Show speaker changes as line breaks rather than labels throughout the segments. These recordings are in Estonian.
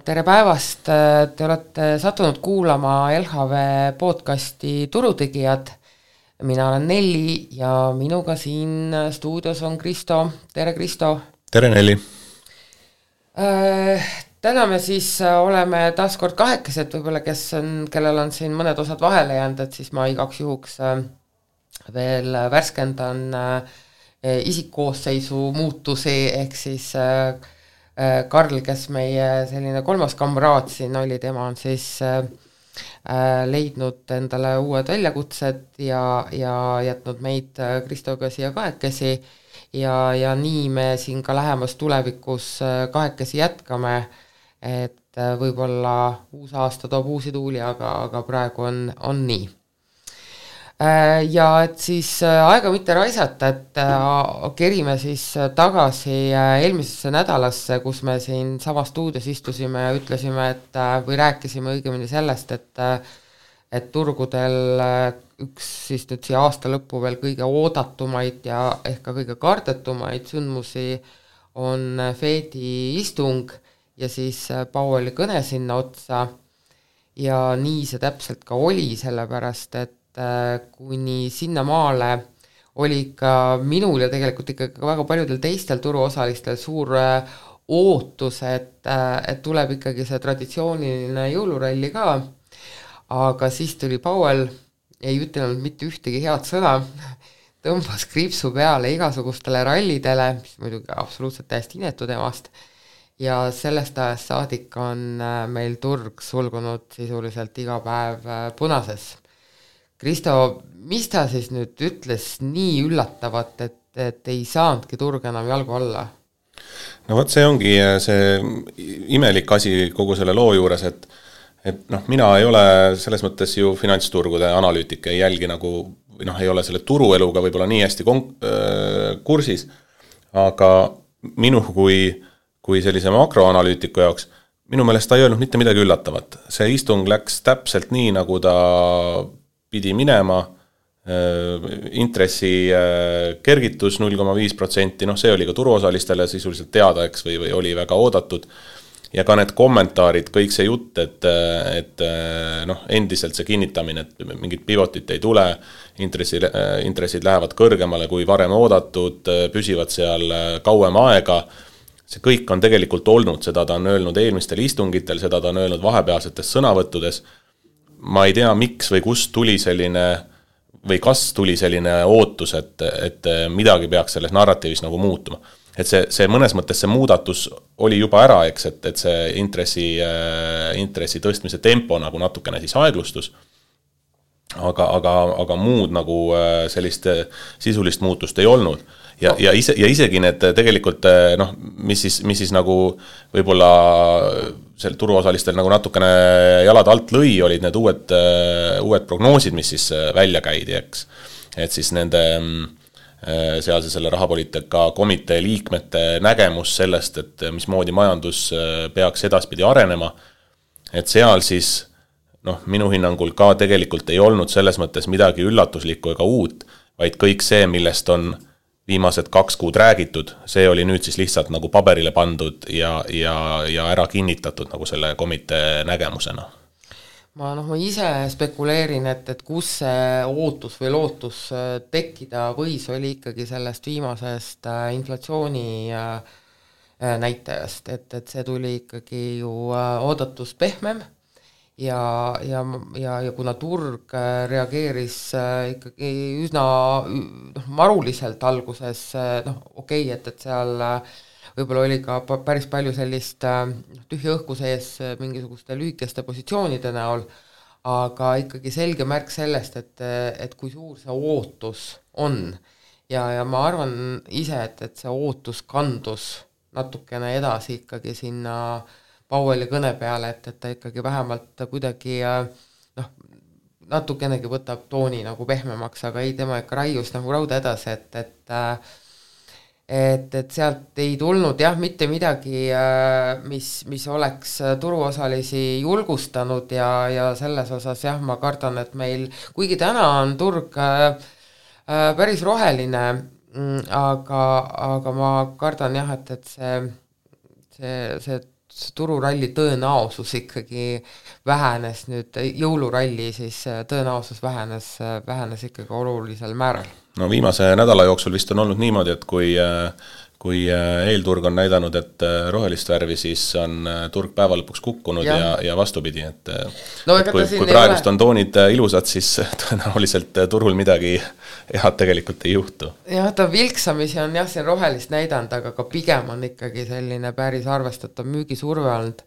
Tere päevast, te olete sattunud kuulama LHV podcasti Turutegijad. Mina olen Nelli ja minuga siin stuudios on Kristo. Tere Kristo.
Tere Nelli.
Täna me siis oleme taas kord kahekesed, võib-olla kellel on siin mõned osad vahele jäänud, et siis ma igaks juhuks veel värskendan isikkoosseisu muutusi, ehk siis Karl, kes meie selline kolmas kamraad siin oli, tema on siis leidnud endale uued väljakutsed ja jätnud meid Kristoga siia kahekesi ja nii me siin ka lähemas tulevikus kahekesi jätkame, et võib-olla uus aasta toob uusi tuuli, aga praegu on nii. Ja et siis aega mitte raisata, et kerime siis tagasi eelmisesse nädalasse, kus me siin sama stuudios istusime ja ütlesime, või rääkisime õigemini sellest, et turgudel üks siis nüüd siia aasta lõppu veel kõige oodatumaid ja ehk ka kõige kardetumaid sündmusi on Fedi istung ja siis Powelli kõne sinna otsa ja nii see täpselt ka oli, sellepärast et kuni sinna maale oli ikka minul ja tegelikult ikkagi väga paljudel teistel turuosalistel suur ootus, et tuleb ikkagi see traditsiooniline jõuluralli ka, aga siis tuli Powell, ei ütelnud mitte ühtegi head sõna, tõmbas kriipsu peale igasugustele rallidele, mis muidugi absoluutselt täiesti inetu temast, ja sellest ajast saadik on meil turg sulgunud sisuliselt iga päev punases. Kristo, mis ta siis nüüd ütles nii üllatavat, et ei saanudki turg enam jalgu alla?
No vot, see ongi see imelik asi kogu selle loo juures, et mina ei ole selles mõttes ju finantsturgude analüütik, ei jälgi nagu, ei ole selle turueluga võib-olla nii hästi kursis, aga minu kui sellise makroanalüütiku jaoks, minu meelest ta ei öelnud mitte midagi üllatavat. See istung läks täpselt nii, nagu ta pidi minema, intressi kergitus 0,5%, see oli ka turuosalistele sisuliselt teada, eks, või oli väga oodatud, ja ka need kommentaarid, kõik see jutt, et endiselt see kinnitamine, et mingit pivotit ei tule, intressid lähevad kõrgemale kui varem oodatud, püsivad seal kauem aega, see kõik on tegelikult olnud, seda ta on öelnud eelmistel istungitel, seda ta on öelnud vahepealsetes sõnavõttudes. Ma ei tea, miks või kust tuli selline, või kas tuli selline ootus, et midagi peaks selles narratiivis nagu muutuma. Et see mõnes mõttes see muudatus oli juba ära, eks, et see intressi tõstmise tempo nagu natukene siis aeglustus, aga muud nagu sellist sisulist muutust ei olnud. Ja isegi need tegelikult, mis siis nagu võib-olla seal turuosalistel nagu natukene jalad alt lõi, olid need uued prognoosid, mis siis välja käidi, eks. Et siis nende sealse selle rahapoliitika komitee liikmete nägemus sellest, et mismoodi majandus peaks edaspidi arenema, et seal siis minu hinnangul ka tegelikult ei olnud selles mõttes midagi üllatuslikku ega uut, vaid kõik see, millest on viimased 2 kuud räägitud, see oli nüüd siis lihtsalt nagu paberile pandud ja ära kinnitatud nagu selle komitee nägemusena.
Ma ise spekuleerin, et kus see ootus või lootus tekkida võis, oli ikkagi sellest viimasest inflatsiooni näitajast, et see tuli ikkagi ju oodatus pehmem ja kuna turg reageeris ikkagi üsna maruliselt alguses, et seal võib-olla oli ka päris palju sellist tühja õhku sees mingisuguste lühikeste positsioonide näol, aga ikkagi selge märk sellest, et kui suur see ootus on ja ma arvan ise, et see ootus kandus natukene edasi ikkagi sinna Powelli kõne peale, et ta ikkagi vähemalt kuidagi natukenegi võtab tooni nagu pehmemaks, aga ei, tema ikka raius nagu rauda edasi, et sealt ei tulnud mitte midagi, mis oleks turuosalisi julgustanud ja selles osas ma kardan, et meil, kuigi täna on turg päris roheline, aga ma kardan et see tururalli tõenäosus ikkagi vähenes nüüd, jõuluralli siis tõenäosus vähenes ikkagi olulisel määral.
No viimase nädala jooksul vist on olnud niimoodi, et kui eelturg on näidanud, et rohelist värvi, siis on turg päeva lõpuks kukkunud ja vastupidi, et kui praegust on toonid ilusad, siis tõenäoliselt turul midagi head tegelikult ei juhtu.
Jah, ta vilksamisi on siin rohelist näidanud, aga ka pigem on ikkagi selline päris arvestatav müügisurve olnud.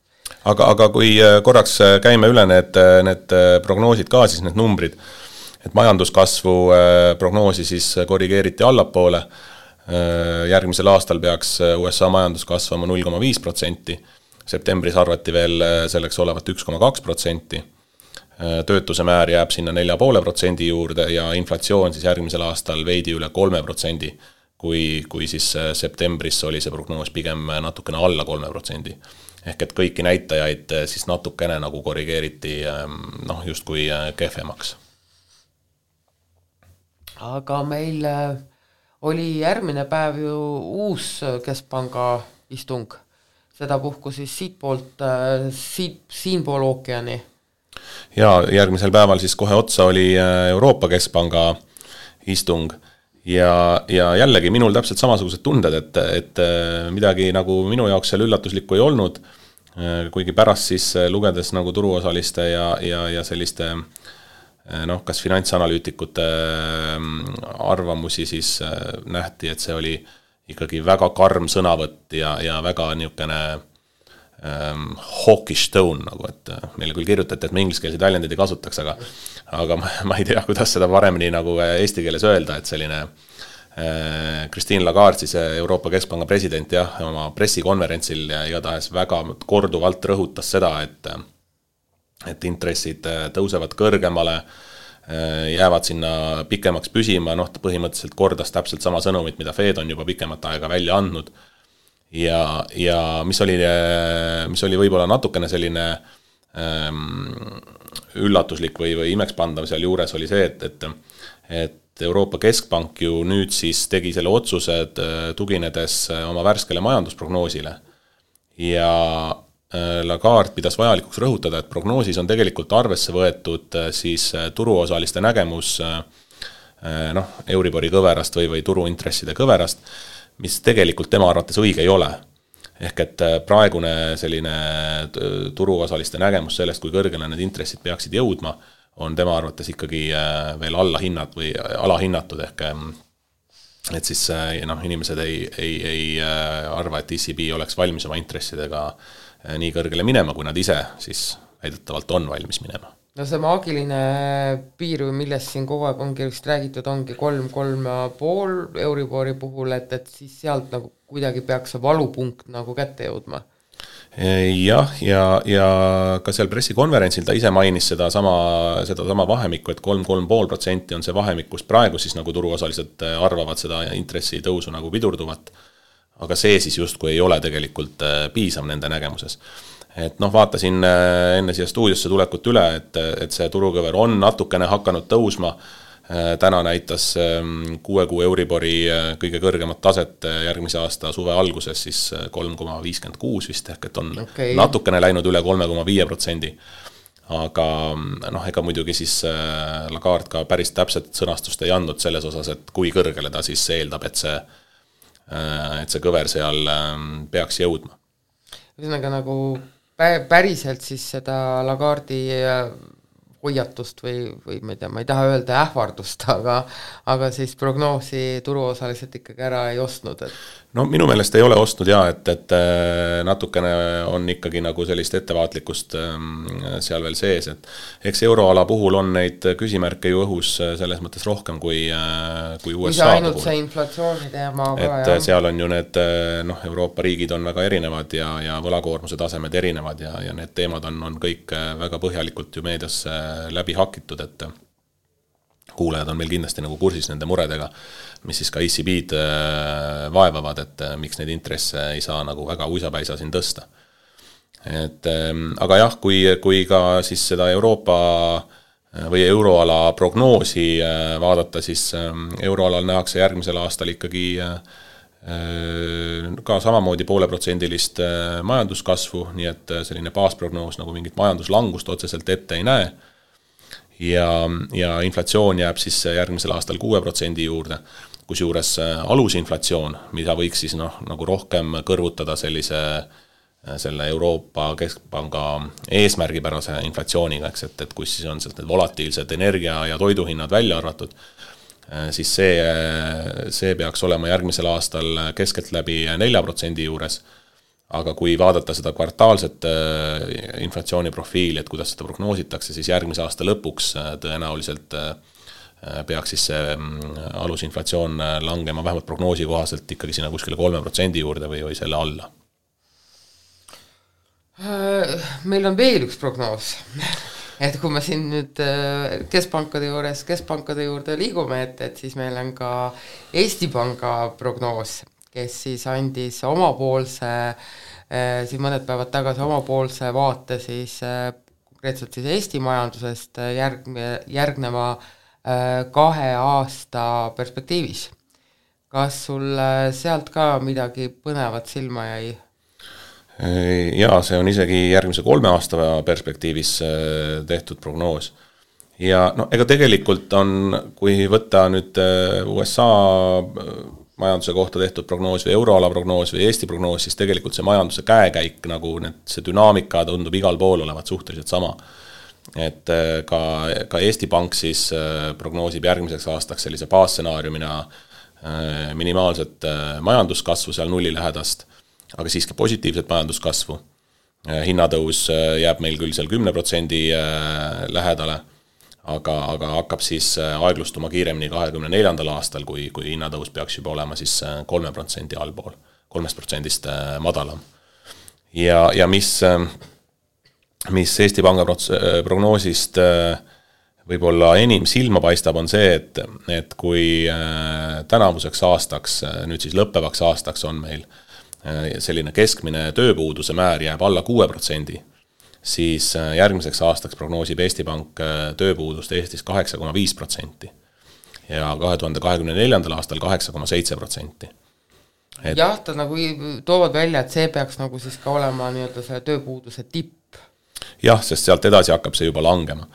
Aga kui korraks käime üle need prognoosid ka, siis need numbrid, et majanduskasvu prognoosi siis korrigeeriti allapoole, järgmisel aastal peaks USA majandus kasvama 0,5%, septembris arvati veel selleks olevat 1,2%, töötuse määr jääb sinna 4,5% juurde ja inflatsioon siis järgmisel aastal veidi üle 3%, kui siis septembris oli see prognoos pigem natukene alla 3%. Ehk et kõiki näitajaid siis natukene nagu korrigeeriti justkui kehvemaks.
Aga meil oli järgmine päev ju uus keskpanga istung, seda puhku siis siinpool ookeani.
Ja järgmisel päeval siis kohe otsa oli Euroopa Keskpanga istung ja jällegi minul täpselt samasugused tunded, et midagi nagu minu jaoks seal üllatuslikku ei olnud, kuigi pärast siis lugedes nagu turuosaliste ja selliste kas finantsanalüütikute arvamusi, siis nähti, et see oli ikkagi väga karm sõnavõtt ja väga niisugune hawkish tone, nagu et meile küll kirjutati, et me ingliskeelseid väljendeid ei kasutaks, aga ma ei tea, kuidas seda paremini nagu eesti keeles öelda, et selline Christine Lagarde, siis Euroopa Keskpanga president, oma pressikonverentsil igatahes väga korduvalt rõhutas seda, et intressid tõusevad kõrgemale, jäävad sinna pikemaks püsima, põhimõtteliselt kordas täpselt sama sõnumit, mida Fed on juba pikemat aega välja andnud. Ja mis oli võib-olla natukene selline üllatuslik või imekspandav seal juures oli see, et Euroopa Keskpank ju nüüd siis tegi selle otsused tuginedes oma värskele majandusprognoosile ja Lagarde pidas vajalikuks rõhutada, et prognoosis on tegelikult arvesse võetud siis turuosaliste nägemus Euribori kõverast või turuintresside kõverast, mis tegelikult tema arvates õige ei ole. Ehk et praegune selline turuosaliste nägemus sellest, kui kõrgele need intressid peaksid jõudma, on tema arvates ikkagi veel alahinnatud, ehk et siis inimesed ei arva, et ECB oleks valmis oma intressidega nii kõrgele minema, kui nad ise siis väidetavalt on valmis minema.
No see maagiline piir, millest siin kogu aeg ongi räägitud, ongi 3,5 Euribori puhul, et siis sealt nagu kuidagi peaks see valupunkt nagu kätte jõudma.
Jah, ja ka seal pressikonverentsil ta ise mainis seda sama vahemikku, et 3,5% on see vahemik, kus praegu siis nagu turuosalised arvavad seda intressi tõusu nagu pidurduvat, aga see siis justkui ei ole tegelikult piisav nende nägemuses. Et vaatasin enne siia stuudiosse tulekut üle, et see turukõver on natukene hakanud tõusma. Täna näitas 6 kuu Euribori kõige kõrgemat taset järgmise aasta suve alguses siis 3,56 vist, ehk et on natukene läinud üle 3,5%. Aga ega muidugi siis Lagarde ka päris täpset sõnastust ei andnud selles osas, et kui kõrgele ta siis eeldab, et see kõver seal peaks jõudma.
Ühesõnaga nagu päriselt siis seda Lagarde'i hoiatust või ma ei taha öelda ähvardust, aga siis prognoosi turuosaliselt ikkagi ära ei ostnud.
No minu meelest ei ole ostnud et natukene on ikkagi nagu sellist ettevaatlikkust seal veel sees, et eks euroala puhul on neid küsimärke ju õhus selles mõttes rohkem kui USA
puhul. Ainult see inflatsiooni teema ka.
Et seal on ju need Euroopa riigid on väga erinevad ja võlakoormuse tasemed erinevad ja need teemad on kõik väga põhjalikult ju meedias läbi hakitud, et kuulajad on meil kindlasti nagu kursis nende muredega, mis siis ka ECB-d vaevavad, et miks neid intresse ei saa nagu väga uisapäisa siin tõsta. Aga jah, kui ka siis seda Euroopa või euroala prognoosi vaadata, siis euroalal nähakse järgmisel aastal ikkagi ka samamoodi 0,5% majanduskasvu, nii et selline baasprognoos nagu mingit majanduslangust otseselt ette ei näe. Ja inflatsioon jääb siis järgmisel aastal 6% juurde, kusjuures alusinflatsioon, mida võiks siis nagu rohkem kõrvutada selle Euroopa Keskpanga eesmärgipärase inflatsiooniga, eks, et kus siis on need volatiilsed energia- ja toiduhinnad välja arvatud, siis see peaks olema järgmisel aastal keskeltläbi 4% juures, aga kui vaadata seda kvartaalset inflatsiooniprofiili, et kuidas seda prognoositakse, siis järgmise aasta lõpuks tõenäoliselt peaks siis see alusinflatsioon langema vähemalt prognoosi kohaselt ikkagi sinna kuskile 3% juurde või selle alla.
Meil on veel üks prognoos, et kui me siin nüüd keskpankade juurde liigume, et siis meil on ka Eesti Panga prognoos, kes siis andis omapoolse, siin mõned päevad tagasi omapoolse vaate siis konkreetselt siis Eesti majandusest järgneva 2 aasta perspektiivis. Kas sul sealt ka midagi põnevat silma jäi?
Jaa, see on isegi järgmise 3 aasta perspektiivis tehtud prognoos. Ja ega tegelikult on, kui võtta nüüd USA majanduse kohta tehtud prognoos või euroala prognoos või Eesti prognoos, siis tegelikult see majanduse käekäik, nagu see dünaamika tundub igal pool olevat suhteliselt sama. Et ka Eesti Pank siis prognoosib järgmiseks aastaks sellise baasstsenaariumina minimaalset majanduskasvu seal 0 lähedast, aga siiski positiivset majanduskasvu. Hinnatõus jääb meil küll seal 10% lähedale, aga hakkab siis aeglustuma kiiremini 2024. aastal, kui hinnatõus peaks juba olema siis 3% allpool, 3% madalam. Ja mis Eesti Panga prognoosist võib-olla enim silma paistab, on see, et kui tänavuseks aastaks, nüüd siis lõppevaks aastaks on meil selline keskmine tööpuuduse määr jääb alla 6%, siis järgmiseks aastaks prognoosib Eesti Pank tööpuudust Eestis 8,5% ja 2024. aastal 8,7%.
Jah, ta nagu toovad välja, et see peaks nagu siis ka olema nii-öelda see tööpuuduse tipp.
Jah, sest sealt edasi hakkab see juba langema.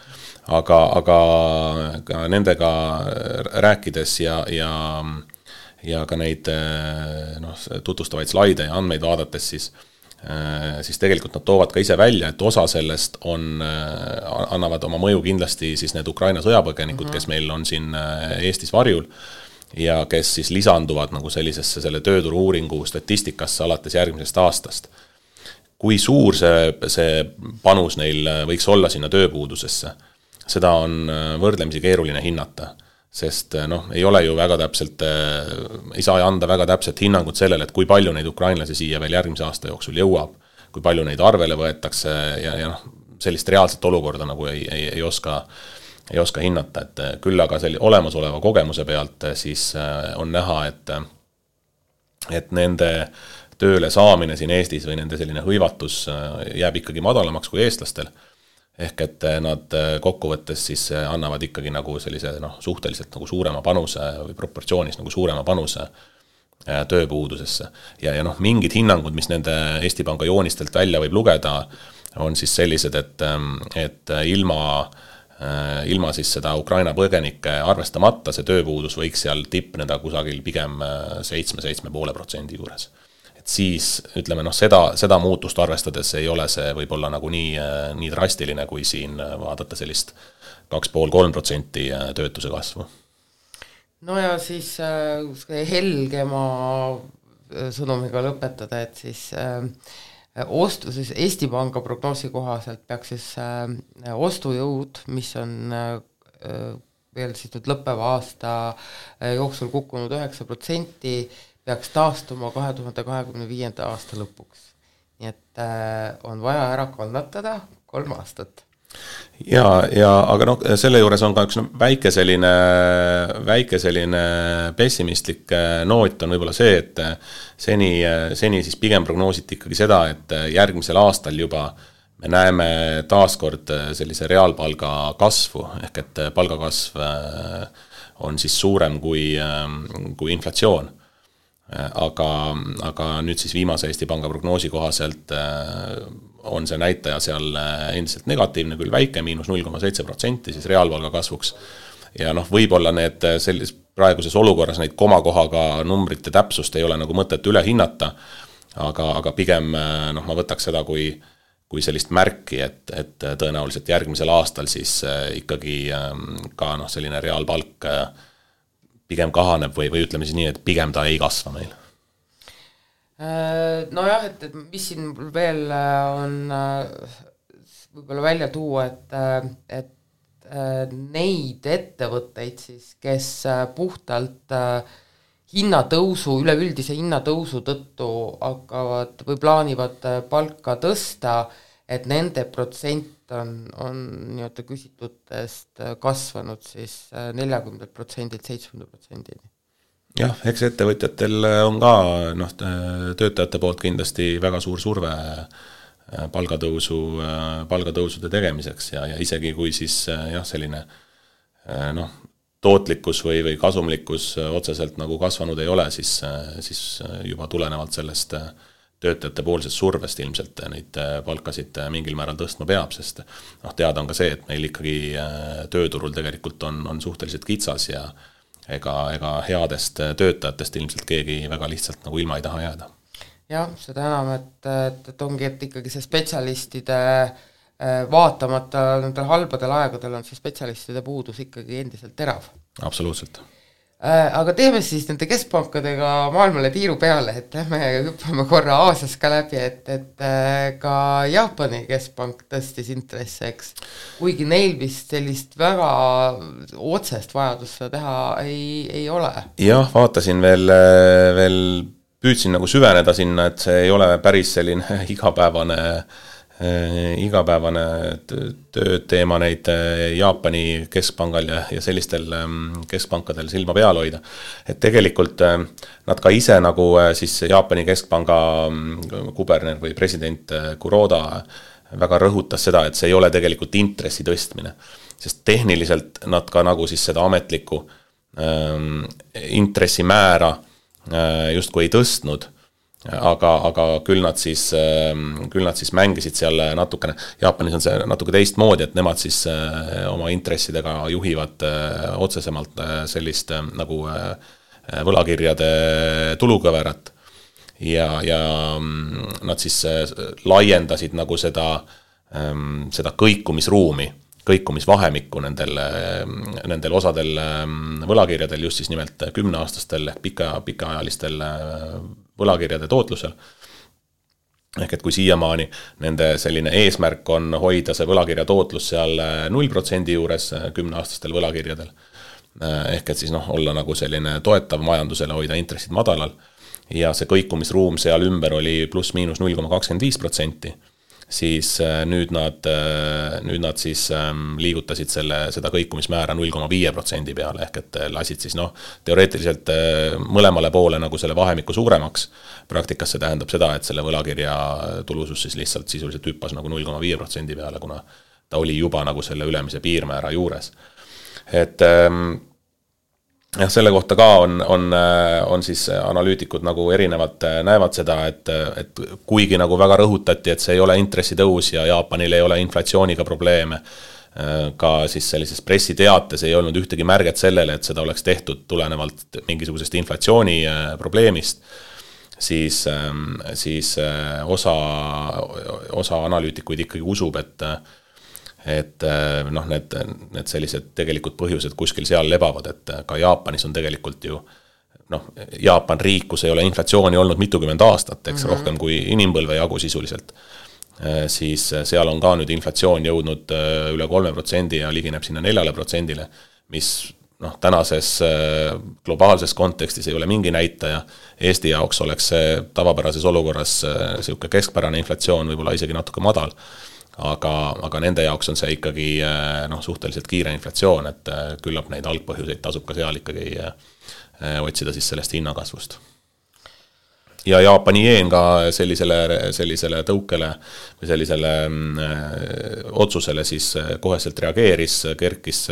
Aga ka nendega rääkides ja ka neid tutvustavaid slaide ja andmeid vaadates, siis tegelikult nad toovad ka ise välja, et osa sellest annavad oma mõju kindlasti siis need Ukraina sõjapõgenikud, kes meil on siin Eestis varjul ja kes siis lisanduvad nagu sellisesse selle tööturu uuringu statistikasse alates järgmisest aastast. Kui suur see panus neil võiks olla sinna tööpuudusesse, seda on võrdlemisi keeruline hinnata. Sest ei ole ju väga täpselt, ei saa anda väga täpselt hinnangut sellele, et kui palju neid ukrainlasi siia veel järgmise aasta jooksul jõuab, kui palju neid arvele võetakse ja sellist reaalset olukorda nagu ei oska hinnata, et küll aga olemasoleva kogemuse pealt siis on näha, et nende tööle saamine siin Eestis või nende selline hõivatus jääb ikkagi madalamaks kui eestlastel. Ehk et nad kokkuvõttes siis annavad ikkagi nagu sellise suhteliselt nagu suurema panuse või proportsioonis nagu suurema panuse tööpuudusesse. Ja mingid hinnangud, mis nende Eesti Panga joonistelt välja võib lugeda, on siis sellised, et ilma siis seda Ukraina põgenike arvestamata see tööpuudus võiks seal tippneda kusagil pigem 7,5% juures. Et siis, ütleme, seda muutust arvestades ei ole see võib-olla nagu nii drastiline, kui siin vaadata sellist 2,5-3% töötuse kasvu.
No ja siis helgema sõnumiga lõpetada, et siis siis Eesti Panga prognoosi kohaselt peaks siis ostujõud, mis on veel siis nüüd lõppeva aasta jooksul kukkunud 9%, peaks taastuma 2025. aasta lõpuks. Nii et on vaja ära kannatada 3 aastat.
Aga selle juures on ka üks väike selline pessimistlik noot on võib-olla see, et seni siis pigem prognoositi ikkagi seda, et järgmisel aastal juba me näeme taaskord sellise reaalpalga kasvu, ehk et palgakasv on siis suurem kui inflatsioon. aga nüüd siis viimase Eesti Panga prognoosi kohaselt on see näitaja seal endiselt negatiivne, küll väike, -0,7% siis reaalpalga kasvuks. Ja võib-olla need praeguses olukorras neid komakohaga numbrite täpsust ei ole nagu mõtet üle hinnata, aga pigem ma võtaks seda kui sellist märki, et tõenäoliselt järgmisel aastal siis ikkagi ka selline reaalpalk pigem kahaneb või ütleme siis nii, et pigem ta ei kasva meil.
Nojah, et mis siin veel on võib-olla välja tuua, et neid ettevõtteid siis, kes puhtalt hinnatõusu, üleüldise hinnatõusu tõttu hakkavad või plaanivad palka tõsta, et nende protsent on nii-öelda küsitutest kasvanud siis 40%-lt 70%-ni.
Jah, eks ettevõtjatel on ka töötajate poolt kindlasti väga suur surve palgatõusude tegemiseks ja isegi kui siis selline tootlikkus või kasumlikkus otseselt nagu kasvanud ei ole, siis juba tulenevalt sellest töötajate poolsest survest ilmselt neid palkasid mingil määral tõstma peab, sest teada on ka see, et meil ikkagi tööturul tegelikult on suhteliselt kitsas ja ega headest töötajatest ilmselt keegi väga lihtsalt nagu ilma ei taha jääda.
Jah, seda enam, et ongi, et ikkagi see spetsialistide vaatamata nendel halbadel aegadel on see spetsialistide puudus ikkagi endiselt terav.
Absoluutselt.
Aga teeme siis nende keskpankadega maailmale tiiru peale, et lähme hüppame korra Aasias ka läbi, et ka Jaapani keskpank tõstis intresse, eks. Kuigi neil vist sellist väga otsest vajadust seda teha ei ole.
Jah, vaatasin veel püüdsin nagu süveneda sinna, et see ei ole päris selline igapäevane tööteema neid Jaapani keskpangal ja sellistel keskpankadel silma peal hoida. Et tegelikult nad ka ise nagu siis Jaapani keskpanga kuberner või president Kuroda väga rõhutas seda, et see ei ole tegelikult intressi tõstmine. Sest tehniliselt nad ka nagu siis seda ametlikku intressimäära justkui ei tõstnud, aga küll nad siis mängisid seal natukene, Jaapanis on see natuke teistmoodi, et nemad siis oma intressidega juhivad otsesemalt sellist nagu võlakirjade tulukõverat ja nad siis laiendasid nagu seda kõikumisvahemikku nendel osadel võlakirjadel, just siis nimelt 10-aastastel ehk pikaajalistel võlakirjade tootlusel. Ehk et kui siiamaani nende selline eesmärk on hoida see võlakirja tootlus seal 0% juures 10-aastastel võlakirjadel, ehk et siis olla nagu selline toetav majandusele, hoida intressid madalal ja see kõikumisruum seal ümber oli pluss-miinus 0,25%, siis nüüd nad siis liigutasid seda kõikumismäära 0,5% peale, ehk et lasid siis teoreetiliselt mõlemale poole nagu selle vahemiku suuremaks. Praktikas see tähendab seda, et selle võlakirja tulusus siis lihtsalt sisuliselt hüppas nagu 0,5% peale, kuna ta oli juba nagu selle ülemise piirmäära juures. Et jah, selle kohta ka on siis analüütikud nagu erinevalt näevad seda, et kuigi nagu väga rõhutati, et see ei ole intressitõus ja Jaapanil ei ole inflatsiooniga probleeme, ka siis sellises pressiteates ei olnud ühtegi märget sellele, et seda oleks tehtud tulenevalt mingisugusest inflatsiooni probleemist, siis osa analüütikuid ikkagi usub, et need sellised tegelikult põhjused kuskil seal lebavad, et ka Jaapanis on tegelikult ju Jaapan riik, kus ei ole inflatsiooni olnud mitukümmend aastat, eks rohkem kui inimpõlve jagu sisuliselt, siis seal on ka nüüd inflatsioon jõudnud üle 3% ja ligineb sinna 4%, mis tänases globaalses kontekstis ei ole mingi näitaja. Eesti jaoks oleks see tavapärases olukorras selline keskpärane inflatsioon, võib-olla isegi natuke madal, aga nende jaoks on see ikkagi suhteliselt kiire inflatsioon, et küllap neid algpõhjuseid tasub ka seal ikkagi otsida siis sellest hinnakasvust. Ja Jaapani jeen ka sellisele tõukele või sellisele otsusele siis koheselt reageeris, kerkis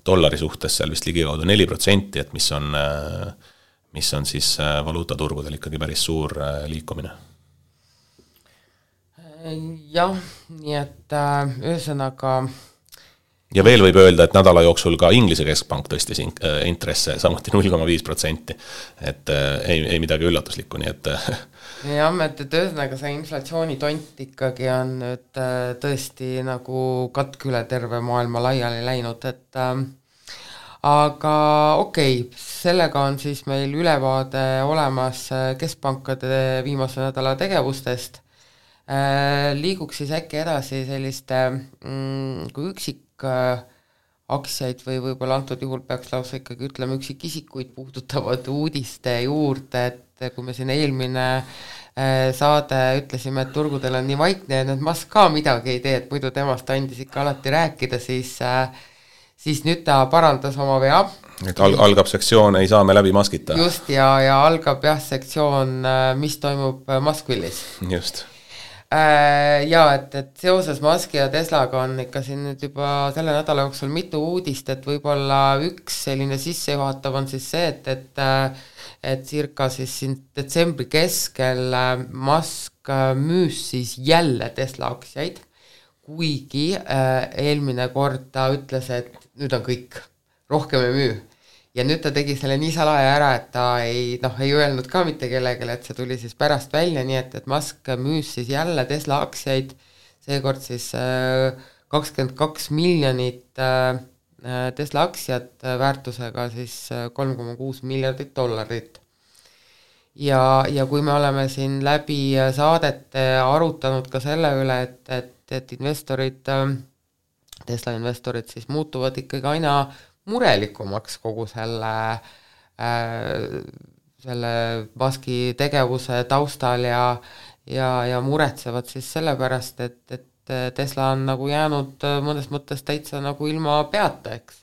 dollari suhtes seal vist ligikaudu 4%, et mis on siis valuutaturgudel ikkagi päris suur liikumine.
Jah, nii et ühesõnaga
ja veel võib öelda, et nädala jooksul ka Inglise keskpank tõstis intresse samuti 0,5%, et ei midagi üllatuslikku, nii et
jah, et ühesõnaga see inflatsioonitont ikkagi on nüüd tõesti nagu katk üle terve maailma laiali läinud, et aga okei, sellega on siis meil ülevaade olemas keskpankade viimase nädala tegevustest. Liiguks siis äkki edasi selliste kui üksik aktsiaid või võib-olla antud juhul peaks lausa ikkagi ütlema üksikisikuid puudutavad uudiste juurde, et kui me siin eelmine saade ütlesime, et turgudel on nii vaikne ja need Musk ka midagi ei tee, et muidu temast andis ikka alati rääkida, siis nüüd ta parandas oma vea.
Et algab sektsioon, ei saa me läbi Muskita.
Just, ja algab sektsioon, mis toimub Muskvillis.
Just.
Ja, et seoses Muski ja Teslaga on ikka siin nüüd juba selle nädala jooksul mitu uudist, et võib-olla üks selline sissejuhatav on siis see, et circa siis siin detsembri keskel Musk müüs siis jälle Tesla aktsiaid, kuigi eelmine kord ta ütles, et nüüd on kõik, rohkem ei müü. Ja nüüd ta tegi selle nii salaja ära, et ta ei öelnud ka mitte kellegele, et see tuli siis pärast välja, nii et Musk müüs siis jälle Tesla aktsiaid, seekord siis 22 miljonit Tesla aktsiat väärtusega siis $3,6 miljardit. Ja kui me oleme siin läbi saadete arutanud ka selle üle, et investorid, Tesla investorid siis muutuvad ikkagi aina murelikumaks kogu selle Muski tegevuse taustal ja muretsevad siis sellepärast, et Tesla on nagu jäänud mõnes mõttes täitsa nagu ilma peata, eks,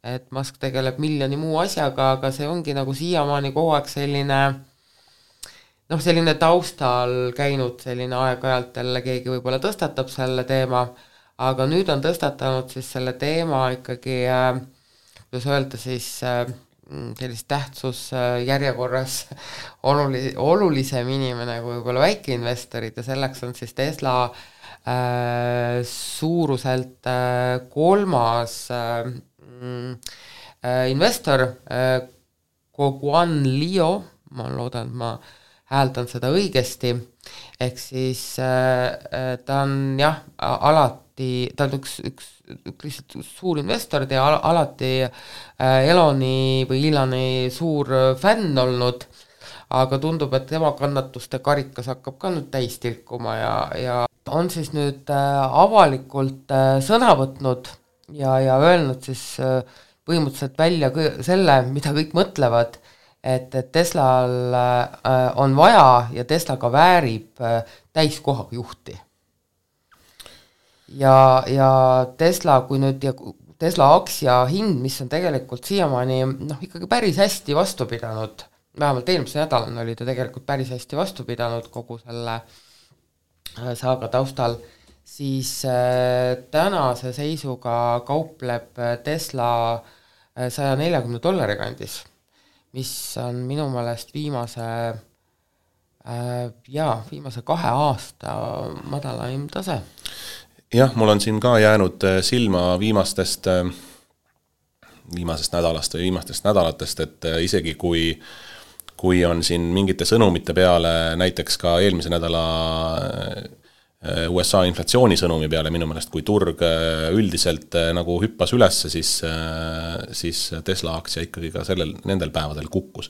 et Musk tegeleb miljoni muu asjaga, aga see ongi nagu siiamaani kogu aeg selline taustal käinud selline aeg-ajalt jälle keegi võib-olla tõstatab selle teema, aga nüüd on tõstatanud siis selle teema ikkagi, kuidas öelda siis, sellist tähtsus järjekorras olulisem inimene kui võib-olla väikeinvestorid ja selleks on siis Tesla suuruselt kolmas investor, Guoguan Liu, ma loodan, et ma hääldan seda õigesti, ehk siis ta on alati, ta on üks lihtsalt suur investor ja alati Eloni suur fänn olnud, aga tundub, et tema kannatuste karikas hakkab ka nüüd täis tilkuma ja on siis nüüd avalikult sõna võtnud ja öelnud siis põhimõtteliselt välja selle, mida kõik mõtlevad, et Teslal on vaja ja Tesla ka väärib täiskohaga juhti. Ja Tesla, kui nüüd Tesla aktsia hind, mis on tegelikult siiamaani ikkagi päris hästi vastu pidanud, vähemalt eelmise nädalal oli ta tegelikult päris hästi vastu pidanud kogu selle saaga taustal, siis tänase seisuga kaupleb Tesla $140 kandis, mis on minu meelest viimase 2 aasta madalaim tase.
Jah, mul on siin ka jäänud silma viimastest nädalast või viimastest nädalatest, et isegi kui on siin mingite sõnumite peale, näiteks ka eelmise nädala USA inflatsiooni sõnumi peale minu meelest, kui turg üldiselt nagu hüppas üles, siis Tesla aktsia ikkagi ka nendel päevadel kukkus.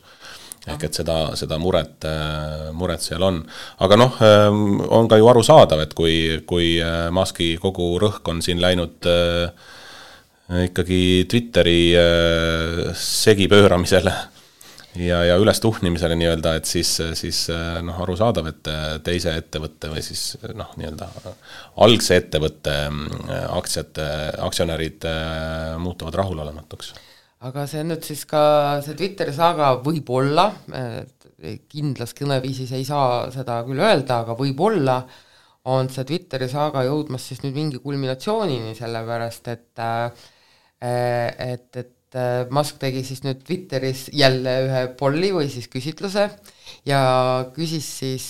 Ehk et seda muret seal on. Aga on ka ju arusaadav, et kui Muski kogu rõhk on siin läinud ikkagi Twitteri segipööramisele ja üles tuhnimisele nii-öelda, et siis arusaadav, et teise ettevõtte või siis nii-öelda algse ettevõtte aktsionärid muutuvad rahulolematuks.
Aga see nüüd siis ka see Twitteri saaga võib-olla, kindlas kõneviisis ei saa seda küll öelda, aga võib-olla on see Twitteri saaga jõudmas siis nüüd mingi kulminatsioonini, sellepärast et Musk tegi siis nüüd Twitteris jälle ühe polli või siis küsitluse ja küsis siis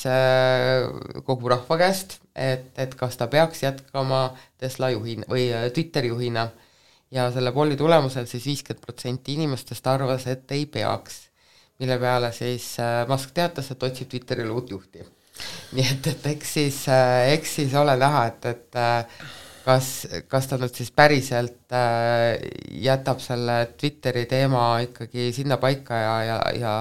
kogu rahva käest, et kas ta peaks jätkama Tesla juhina või Twitteri juhina ja selle polli tulemusel siis 50% inimestest arvas, et ei peaks, mille peale siis Musk teatas, et otsib Twitterile uut juhti. Nii et eks siis ole näha, et kas ta nüüd siis päriselt jätab selle Twitteri teema ikkagi sinna paika ja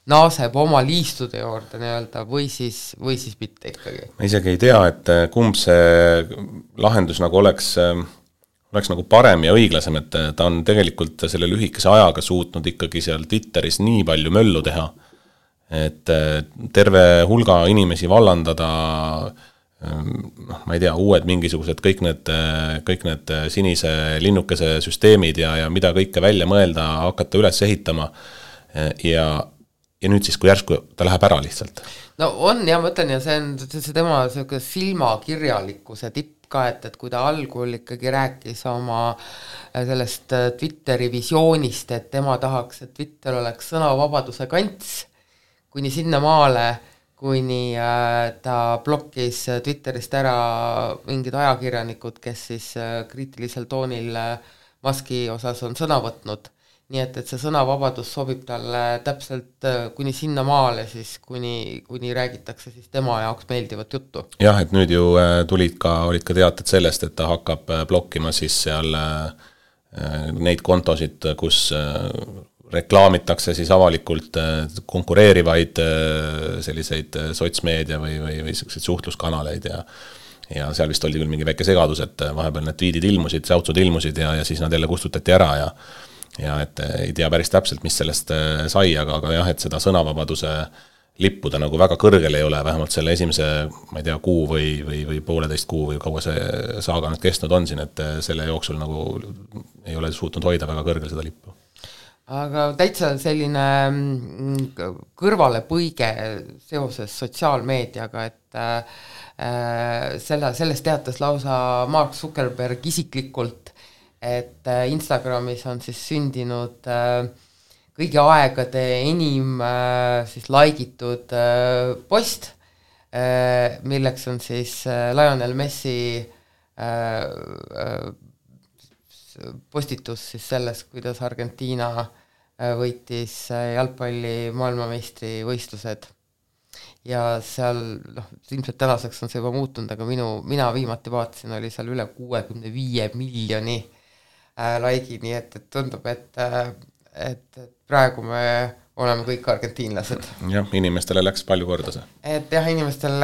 naaseb oma liistude juurde nii-öelda või siis mitte ikkagi.
Ma isegi ei tea, et kumb see lahendus nagu oleks nagu parem ja õiglasem, et ta on tegelikult selle lühikese ajaga suutnud ikkagi seal Twitteris nii palju möllu teha, et terve hulga inimesi vallandada, ma ei tea, uued mingisugused kõik need sinise linnukese süsteemid ja mida kõike välja mõelda, hakata üles ehitama ja nüüd siis, kui järsku ta läheb ära lihtsalt.
No on ja ma ütlen ja see on tema silmakirjalikkuse tipp ka, et kui ta algul ikkagi rääkis oma sellest Twitteri visioonist, et tema tahaks, et Twitter oleks sõnavabaduse kants, kuni sinna maale, kuni ta blokkis Twitterist ära mingid ajakirjanikud, kes siis kriitilisel toonil Muski osas on sõna võtnud. Nii et see sõnavabadus sobib talle täpselt kuni sinna maale, siis kuni räägitakse siis tema jaoks meeldivat juttu.
Jah, et nüüd ju olid ka teated sellest, et ta hakkab blokkima siis seal neid kontosid, kus reklaamitakse siis avalikult konkureerivaid selliseid sotsmeedia või selliseid suhtluskanaleid ja seal vist oli küll mingi väike segadus, et vahepeal need tweedid ilmusid, säutsud ilmusid ja siis nad jälle kustutati ära ja et ei tea päris täpselt, mis sellest sai, aga jah, et seda sõnavabaduse lippu ta nagu väga kõrgel ei ole, vähemalt selle esimese, ma ei tea, kuu või pooleteist kuu või kaua see saaga nüüd kestnud on siin, et selle jooksul nagu ei ole suutnud hoida väga kõrgel seda lippu.
Aga täitsa selline kõrvalepõige seoses sotsiaalmeediaga, et sellest teatas lausa Mark Zuckerberg isiklikult, et Instagramis on siis sündinud kõigi aegade enim siis laigitud post, milleks on siis Lionel Messi postitus siis selles, kuidas Argentiina võitis jalgpalli maailmameistri võistlused. Ja seal, ilmselt tänaseks on see juba muutunud, aga mina viimati vaatasin, oli seal üle 65 miljoni laigi, nii et tundub, et praegu me oleme kõik argentiinlased.
Jah, inimestele läks palju korda see.
Et jah, inimestele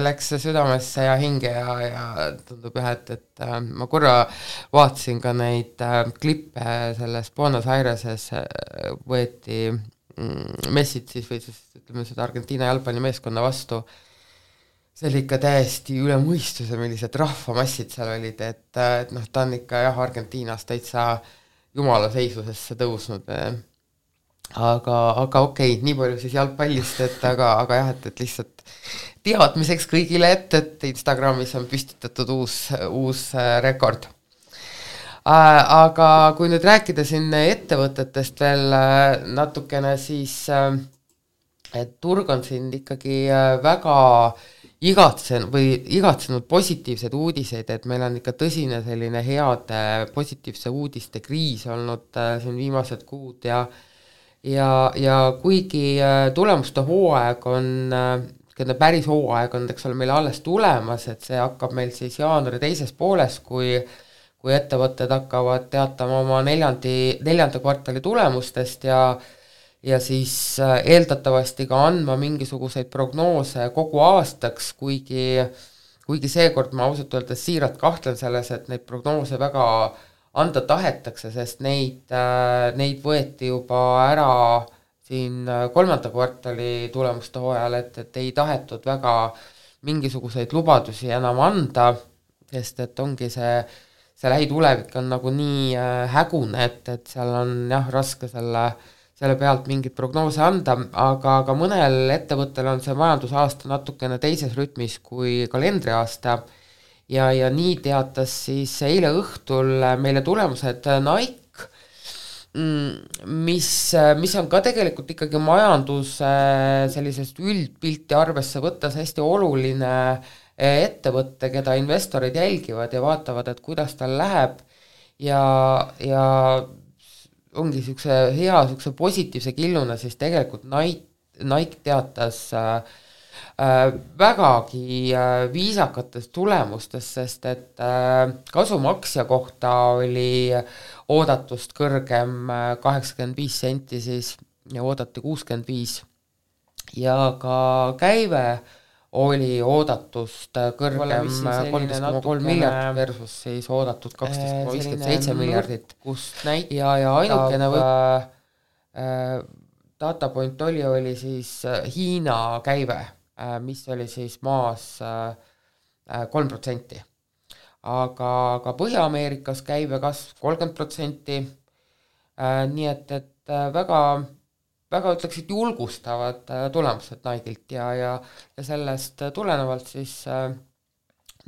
läks südamesse ja hinge ja tundub jah, et ma korra vaatasin ka neid klippe selles Buenos Aireses võeti messid siis või siis ütleme seda Argentiina jalgpallimeeskonna vastu. See oli ikka täiesti üle mõistuse, millised rahvamassid seal olid, et ta on ikka jah, Argentiinas täitsa jumala seisusesse tõusnud. Aga okei, nii palju siis jalgpallist, aga jah, et lihtsalt teadmiseks kõigile, et Instagramis on püstitatud uus rekord. Aga kui nüüd rääkida siin ettevõtetest veel natukene, siis et turg on siin ikkagi väga igatsenud positiivsed uudiseid, et meil on ikka tõsine selline heade positiivse uudiste kriis olnud siin viimased kuud ja kuigi tulemuste hooaeg on, päris hooaeg on, eks ole, meil alles tulemas, et see hakkab meil siis jaanuari teises pooles, kui ettevõtted hakkavad teatama oma neljanda kvartali tulemustest ja siis eeldatavasti ka andma mingisuguseid prognoose kogu aastaks, kuigi seekord ma ausalt öeldes siiralt kahtlen selles, et neid prognoose väga anda tahetakse, sest neid võeti juba ära siin kolmanda kvartali tulemuste hooajal, et ei tahetud väga mingisuguseid lubadusi enam anda, sest et ongi see lähitulevik on nagu nii hägune, et seal on jah, raske selle pealt mingit prognoose anda, aga mõnel ettevõttel on see majandusaasta natukene teises rütmis kui kalendriaasta ja nii teatas siis eile õhtul meile tulemused Nike, mis on ka tegelikult ikkagi majanduse sellisest üldpilti arvesse võttes hästi oluline ettevõtte, keda investorid jälgivad ja vaatavad, et kuidas tal läheb ja ongi niisuguse positiivse killuna, siis tegelikult Nike teatas vägagi viisakatest tulemustest, sest et kasumaksja kohta oli oodatust kõrgem 85 senti siis ja oodati 65 ja ka käive oli oodatust kõrgem 13,3 miljardit versus siis oodatud 12,57 miljardit ja ainukene datapoint oli siis Hiina käive, mis oli siis maas 3%. Aga Põhja-Ameerikas käive kasv 30%, nii et väga, väga ütleksid julgustavad tulemused Nike'ilt ja sellest tulenevalt siis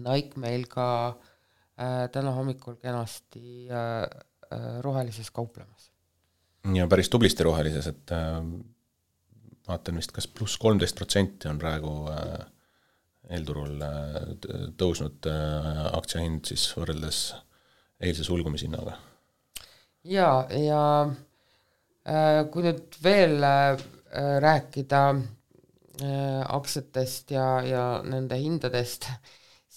Nike meil ka täna hommikul kenasti rohelises kauplemas.
Ja päris tublisti rohelises, et vaatan vist kas pluss 13% on praegu eelturul tõusnud aktsiahind siis võrreldes eilse sulgumishinnaga. Ja
kui nüüd veel rääkida aktsiatest ja nende hindadest,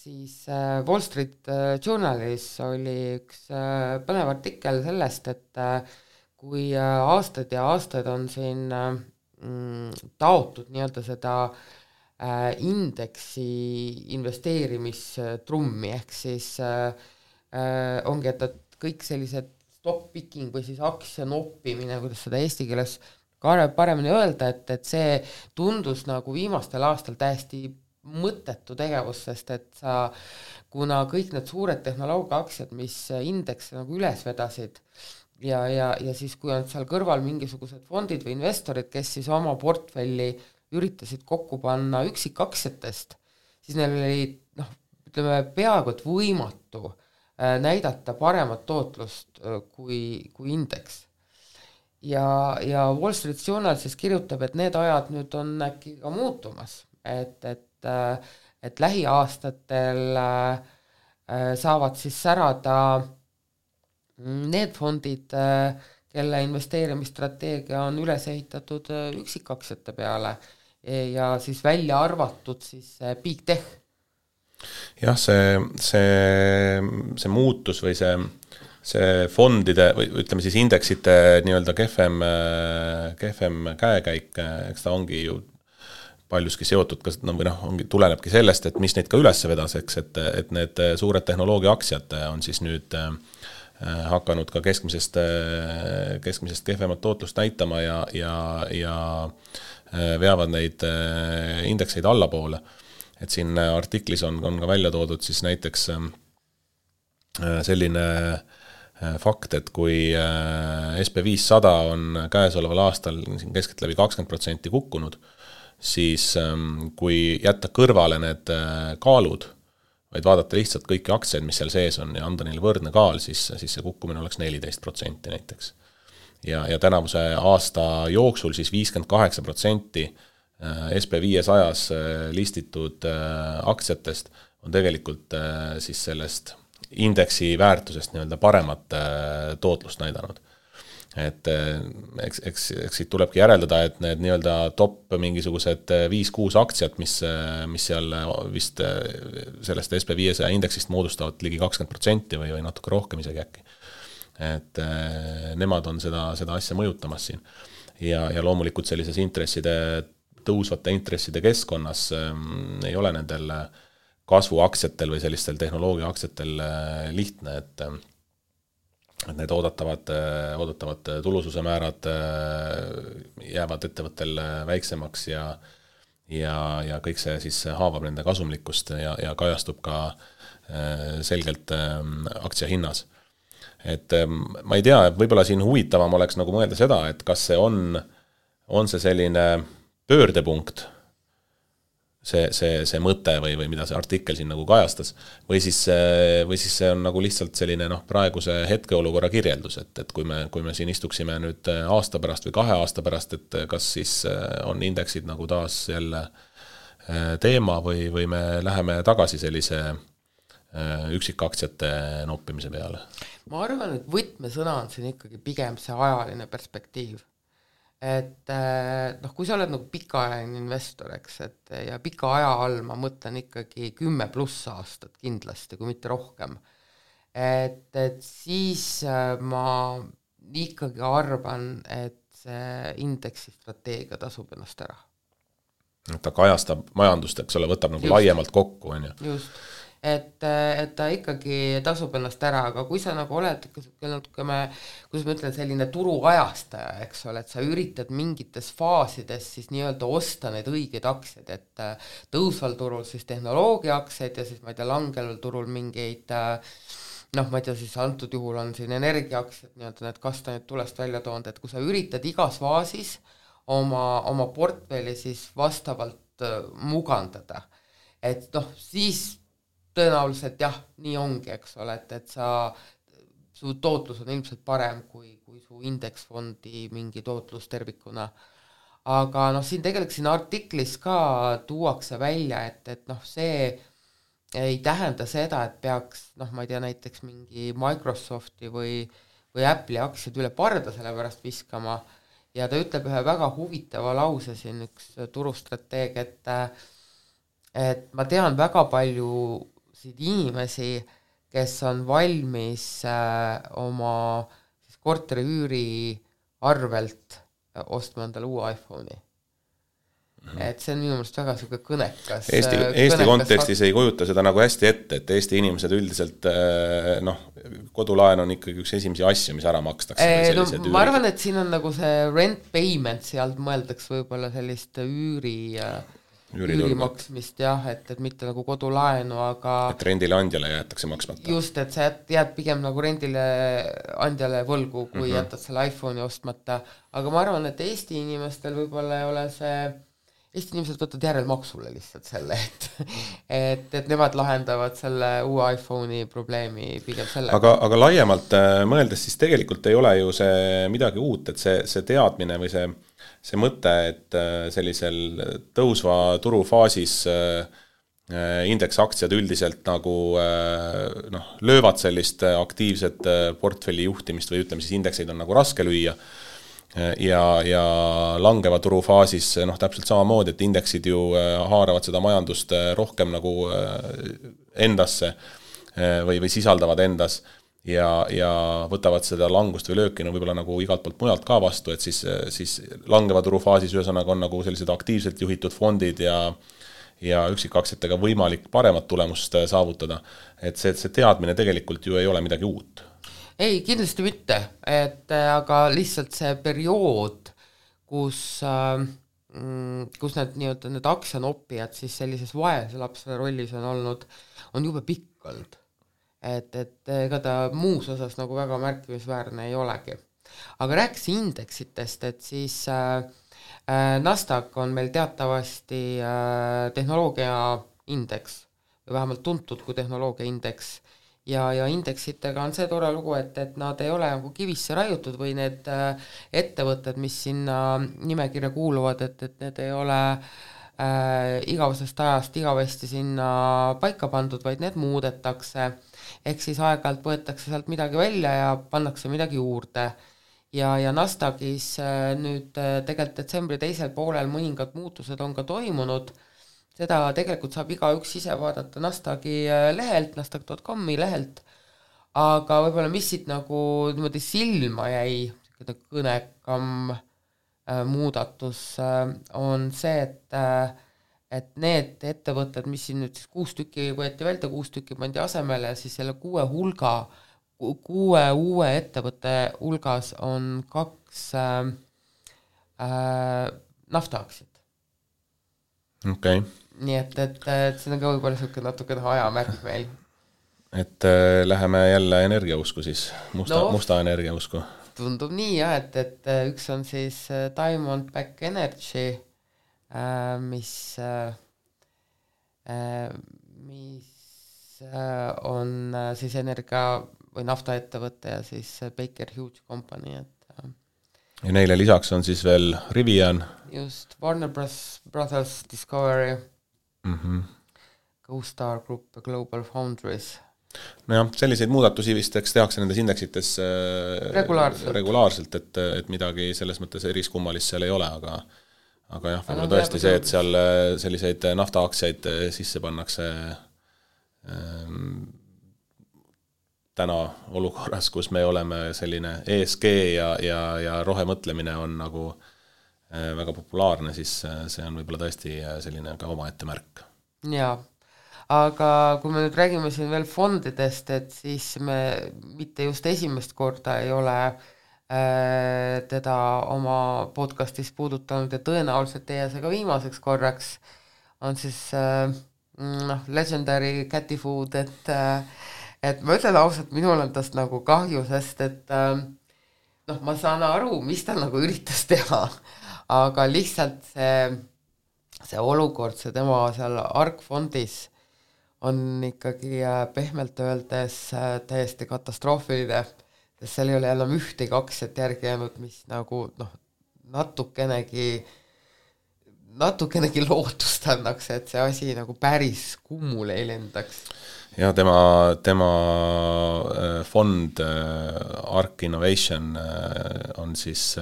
siis Wall Street Journalis oli üks põnev artikkel sellest, et kui aastaid ja aastaid on siin taotud nii-öelda seda indeksi investeerimistrummi, ehk siis ongi, et kõik sellised stock picking või siis aktsia noppimine, kuidas seda eesti keeles paremini öelda, et see tundus nagu viimastel aastal täiesti mõttetu tegevus, sest et kuna kõik need suured tehnoloogiaaktsiad, mis indeks nagu üles vedasid ja siis kui on seal kõrval mingisugused fondid või investorid, kes siis oma portfelli üritasid kokku panna üksikaktsiatest, siis neil oli ütleme peaaegu et võimatu näidata paremat tootlust kui indeks. Ja Wall Street Journal siis kirjutab, et need ajad nüüd on äkki ka muutumas, et lähiaastatel saavad siis särada need fondid, kelle investeerimisstrateegia on üles ehitatud üksikaktsiate peale ja siis välja arvatud siis big tech.
Jah, see muutus või see fondide või ütleme siis indeksite nii-öelda kehvem käekäik, eks ta ongi ju paljuski seotud tulenebki sellest, et mis neid ka üles vedas, eks, et need suured tehnoloogia aktsiad on siis nüüd hakanud ka keskmisest kehvemat tootlust näitama ja veavad neid indekseid allapoole. Et siin artiklis on ka välja toodud siis näiteks selline fakt, et kui SP500 on käesoleval aastal keskeltläbi 20% kukkunud, siis kui jätta kõrvale need kaalud, vaid vaadata lihtsalt kõiki aktsiaid, mis seal sees on ja anda neile võrdne kaal, siis see kukkumine oleks 14% näiteks. Ja tänavuse aasta jooksul siis 58% SP500-s listitud aktsiatest on tegelikult siis sellest indeksi väärtusest nii-öelda paremat tootlust näidanud. Et eks siit tulebki järeldada, et need nii-öelda top mingisugused 5-6 aktsiat, mis seal vist sellest SP500 indeksist moodustavad ligi 20% või natuke rohkem isegi äkki. Et nemad on seda asja mõjutamas siin. Ja loomulikult sellises tõusvate intresside keskkonnas ei ole nendel kasvuaktsiatel või sellistel tehnoloogia aktsiatel lihtne, et need oodatavad tulususe määrad jäävad ettevõttel väiksemaks ja kõik see siis haavab nende kasumlikkust ja kajastub ka selgelt aktsia hinnas. Et ma ei tea, võib-olla siin huvitavam oleks nagu mõelda seda, et kas see on see selline pöördepunkt see mõte või mida see artikkel siin nagu kajastas, või siis see on nagu lihtsalt selline praeguse hetkeolukorra kirjeldus, et kui me siin istuksime nüüd aasta pärast või 2 aasta pärast, et kas siis on indeksid nagu taas jälle teema või me läheme tagasi sellise üksikaktsiate noppimise peale?
Ma arvan, et võtmesõna on siin ikkagi pigem see ajaline perspektiiv. Et kui sa oled nagu pikaajaline investor, eks, ja pika aja all ma mõtlen ikkagi 10+ aastat kindlasti, kui mitte rohkem. Et siis ma ikkagi arvan, et see indeksi strateegia tasub ennast ära.
Ta kajastab majandust, eks ole, võtab nagu laiemalt kokku, on ju.
Just. Et ta ikkagi tasub ennast ära, aga kui sa nagu oled, kuidas ma ütlen, selline turuajastaja, eks ole, et sa üritad mingites faasides siis nii-öelda osta need õiged aktsiad, et tõusval turul siis tehnoloogia aktsiaid ja siis ma ei tea, langeval turul mingeid ma ei tea, siis antud juhul on siin energiaaktsiad, nii-öelda need kastanid tulest välja toonud, et kui sa üritad igas faasis oma portfelli siis vastavalt mugandada, et siis tõenäoliselt jah, nii ongi, eks ole, et su tootlus on ilmselt parem kui su indeksfondi mingi tootlus tervikuna. Aga siin tegelikult siin artiklis ka tuuakse välja, et see ei tähenda seda, et peaks, ma ei tea, näiteks mingi Microsofti või Apple'i aktsiad üle parda selle pärast viskama ja ta ütleb ühe väga huvitava lause siin üks turustrateeg, et ma tean väga palju inimesi, kes on valmis oma siis korteri üüri arvelt ostma endale uue iPhone'i. Et see on minu meelest väga selline kõnekas.
Eesti kontekstis ei kujuta seda nagu hästi ette, et Eesti inimesed üldiselt kodulaen on ikkagi üks esimesi asju, mis ära makstakse.
Ma arvan, et siin on nagu see rent payment, sealt mõeldaks võib-olla sellist üürimaksmist jah, et mitte nagu kodulaenu, aga
et rendile andjale jäetakse maksmata.
Just, et sa jääd pigem nagu rendile andjale võlgu, kui jätad selle iPhone'i ostmata, aga ma arvan, et Eesti inimestel võib-olla ei ole see, Eesti inimesed võtavad järelmaksule lihtsalt selle, et nemad lahendavad selle uue iPhone'i probleemi pigem selle.
Aga laiemalt mõeldes, siis tegelikult ei ole ju see midagi uut, et see teadmine või see mõte, et sellisel tõusva turufaasis indeksaktsiad üldiselt nagu löövad sellist aktiivset portfelli juhtimist või ütleme siis indekseid on nagu raske lüüa ja langeva turufaasis täpselt samamoodi, et indeksid ju haaravad seda majandust rohkem nagu endasse või sisaldavad endas ja võtavad seda langust või lööki võib-olla nagu igalt poolt mujalt ka vastu, et siis langeva turufaasis ühesõnaga on nagu sellised aktiivselt juhitud fondid ja üksikaktsiatega võimalik paremat tulemust saavutada. Et see teadmine tegelikult ju ei ole midagi uut.
Ei, kindlasti mitte, aga lihtsalt see periood, kus need aktsianoppijad siis sellises vaese lapse rollis on olnud, on jube pikk olnud. Et ega ta muus osas nagu väga märkimisväärne ei olegi. Aga rääkis indeksitest, et siis Nasdaq on meil teatavasti tehnoloogia indeks, või vähemalt tuntud kui tehnoloogia indeks, ja indeksitega on see tore lugu, et nad ei ole nagu kivisse raiutud või need ettevõtted, mis sinna nimekirja kuuluvad, et need ei ole igavesest ajast igavesti sinna paika pandud, vaid need muudetakse. Ehk siis aeg-ajalt võetakse sealt midagi välja ja pannakse midagi juurde. Ja Nasdaqis nüüd tegelikult detsembri teisel poolel mõningad muutused on ka toimunud. Seda tegelikult saab igaüks ise vaadata Nasdaqi lehelt, nasdaq.com-i lehelt. Aga võib-olla mis siit nagu niimoodi silma jäi, kõnekam muudatus on see, et need ettevõtted, mis siin nüüd siis 6 tükki võeti välja, 6 tükki pandi asemele, siis selle 6 uue ettevõtte hulgas on 2 naftaaktsiat.
Okay.
Nii et see on ka võib-olla natuke ajamärk meil.
Et läheme jälle energiausku siis, musta energiausku.
Tundub nii jah, et üks on siis Diamondback Energy, mis mis on siis energia või naftaettevõte ja siis Baker Hughes Company, et
ja neile lisaks on siis veel Rivian.
Just, Warner Brothers Discovery, CoStar Group ja Global Foundries.
Nojah, selliseid muudatusi vist tehakse nendes indeksites regulaarselt, et midagi selles mõttes eriskummalist seal ei ole, aga jah, võib-olla tõesti see, et seal selliseid naftaaktsiaid sisse pannakse täna olukorras, kus me oleme selline ESG ja rohemõtlemine on nagu väga populaarne, siis see on võib-olla tõesti selline ka omaette märk.
Jaa, aga kui me nüüd räägime siin veel fondidest, et siis me mitte just esimest korda ei ole teda oma podcastis puudutanud ja tõenäoliselt teie see ka viimaseks korraks on siis Legendary Catty Food, et ma ütlen ausalt, minul on tast nagu kahju, sest et ma saan aru, mis ta nagu üritas teha, aga lihtsalt see olukord, see tema seal ARK-fondis on ikkagi pehmelt öeldes täiesti katastroofiline, sest seal ei ole enam ühtegi aktsiat järgi jäänud, mis nagu natukenegi lootust annaks, et see asi nagu päris kummule ei lendaks.
Ja tema fond ARK Innovation on siis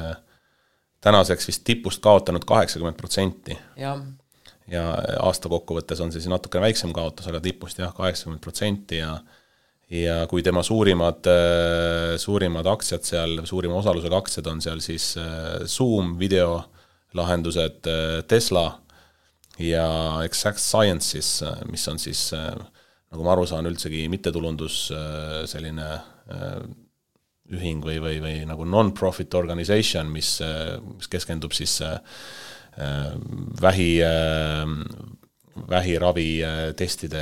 tänaseks vist tipust kaotanud 80%. Ja aasta kokkuvõttes on siis natukene väiksem kaotus, aga tipust jah, 80% ja kui tema suurimad aktsiad seal, suurima osalusega aktsiad on seal siis Zoom videolahendused, Tesla ja Exact Sciences, mis on siis nagu ma aru saan, üldsegi mittetulundus selline ühing või nagu non-profit organization, mis keskendub siis vähiravi testide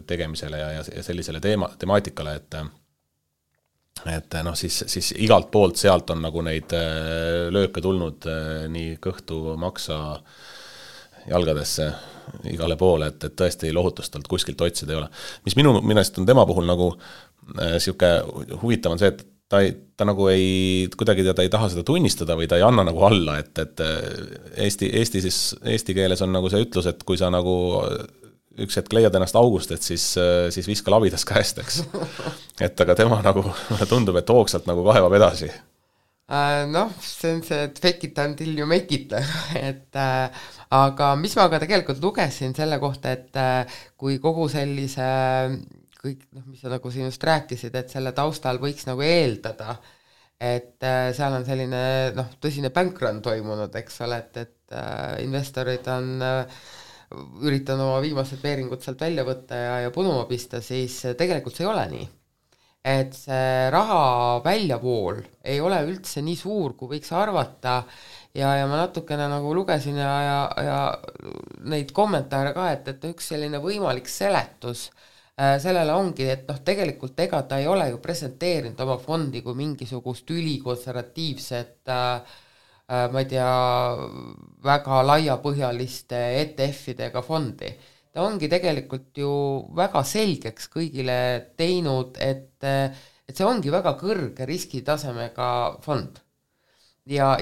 tegemisele ja sellisele temaatikale, et siis igalt poolt sealt on nagu neid lööke tulnud nii kõhtu maksa jalgadesse igale poole, et tõesti lohutust talt kuskilt otsida ei ole. Mis minu mielestä on tema puhul nagu siuke huvitav on see, et ta nagu kuidagi ta ei taha seda tunnistada või ta ei anna nagu alla, et eesti keeles on nagu see ütlus, et kui sa nagu üks hetk leiad ennast august, et siis viska labidas käest, eks. Et aga tema nagu tundub, et hoogsalt nagu kaevab edasi.
See on see, et fake it until you make it, et aga mis ma ka tegelikult lugesin selle kohta, et kui kogu sellise kõik, mis sa nagu siin just rääkisid, et selle taustal võiks nagu eeldada, et seal on selline tõsine bankrun toimunud, eks ole, et investorid on üritanud oma viimased veeringud sealt välja võtta ja punuma pista, siis tegelikult see ei ole nii. Et see raha väljavool ei ole üldse nii suur, kui võiks arvata ja ma natukene nagu lugesin ja neid kommentaare ka, et üks selline võimalik seletus sellele ongi, et tegelikult ega ta ei ole ju presenteerinud oma fondi kui mingisugust ülikonservatiivset, ma ei tea, väga laiapõhjaliste ETF-idega fondi. Ta ongi tegelikult ju väga selgeks kõigile teinud, et see ongi väga kõrge riskitasemega fond. Ja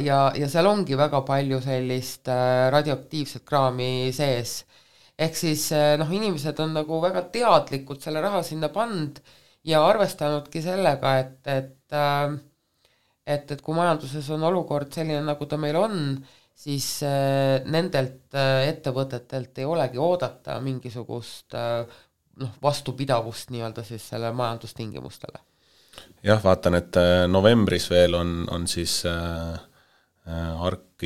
seal ongi väga palju sellist radioaktiivset kraami sees. Ehk siis inimesed on nagu väga teadlikult selle raha sinna pand ja arvestanudki sellega, et kui majanduses on olukord selline, nagu ta meil on, siis nendelt ettevõtetelt ei olegi oodata mingisugust vastupidavust nii-öelda siis selle majandustingimustele.
Jah, vaatan, et novembris veel on siis ARK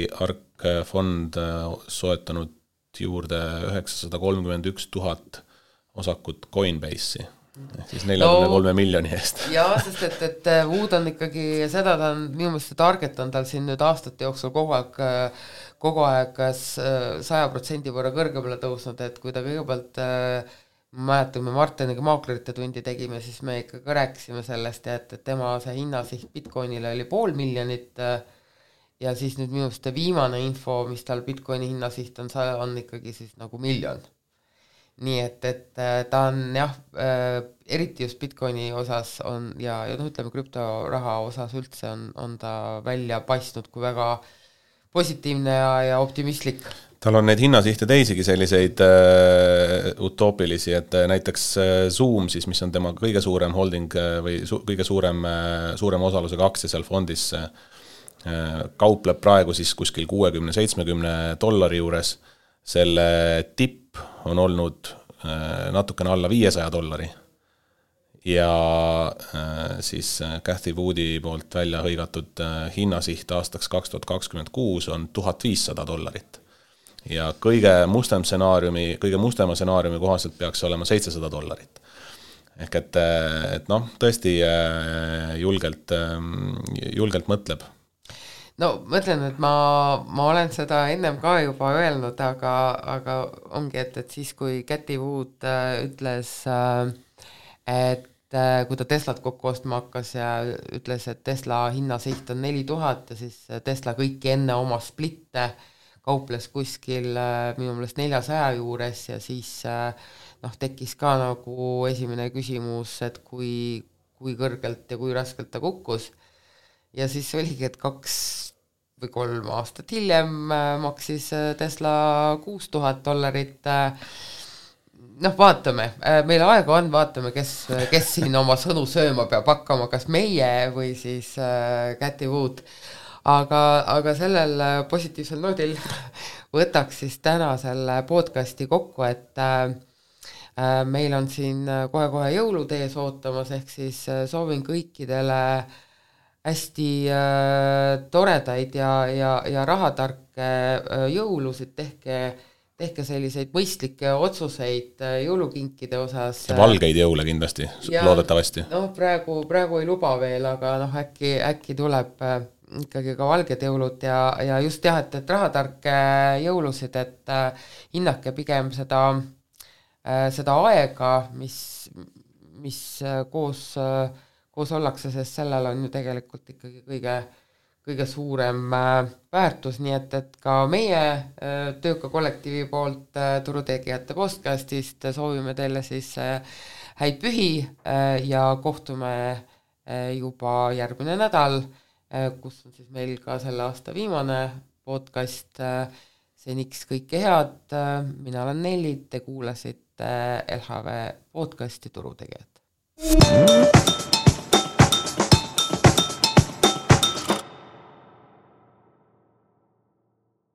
fond soetanud juurde 931 000 osakut Coinbase'i, siis 43 miljoni eest.
Jaa, sest et Wood on ikkagi seda, ta on minu meelest target on tal siin nüüd aastate jooksul kogu aeg 100% võrra kõrgemale tõusnud, et kui ta kõigepealt mäletame Martiniga maaklerite tundi tegime, siis me ikkagi rääkisime sellest, et tema see hinnasiht Bitcoinile oli 500 000 ja siis nüüd minust viimane info, mis tal Bitcoini hinnasiht on ikkagi siis nagu 1 000 000. nii et ta on jah, eriti just Bitcoini osas on ja ütleme krüptoraha osas üldse on ta välja paistnud kui väga positiivne ja optimistlik.
Tal on neid hinnasihte teisigi selliseid utoopilisi, et näiteks Zoom siis, mis on tema kõige suurem holding või kõige suurem osalusega aktsia seal fondis, kaupleb praegu siis kuskil $60-70 juures. Selle tipp on olnud natukene alla $500 ja siis Cathy Woodi poolt välja hõigatud hinnasiht aastaks 2026 on $1500 ja kõige mustema stsenaariumi kohaselt peaks olema $700. Ehk et noh, tõesti julgelt mõtleb.
No mõtlen, et ma olen seda ennem ka juba öelnud, aga ongi, et siis kui Cathy Wood ütles, et kui ta Teslat kokku ostma hakkas ja ütles, et Tesla hinnasiht on 4000 ja siis Tesla kõiki enne oma splitte kauples kuskil minu meelest 400 juures ja siis tekkis ka nagu esimene küsimus, et kui kõrgelt ja kui raskelt ta kukkus. Ja siis oligi, et 2 või 3 aastat hiljem maksis Tesla $6000. Vaatame, meil aega on, vaatame, kes siin oma sõnu sööma peab hakkama, kas meie või siis Cathy Wood. Aga sellel positiivsel noodil võtaks siis täna selle podcasti kokku, et meil on siin kohe jõulud ees ootamas, ehk siis soovin kõikidele hästi toredaid ja rahatarke jõulusid, tehke selliseid mõistlikke otsuseid jõulukinkide osas.
Ja valgeid jõule kindlasti, loodetavasti.
Praegu ei luba veel, aga äkki tuleb ikkagi ka valged jõulud ja just et rahatarke jõulusid, et hinnake pigem seda aega, mis koos ollakse, sest sellel on ju tegelikult ikkagi kõige suurem väärtus, nii et ka meie tööka kollektiivi poolt Turutegijate podcastist soovime teile siis häid pühi ja kohtume juba järgmine nädal, kus on siis meil ka selle aasta viimane podcast. Seniks kõike head, mina olen Nelli, te kuulasite LHV podcasti Turutegijad.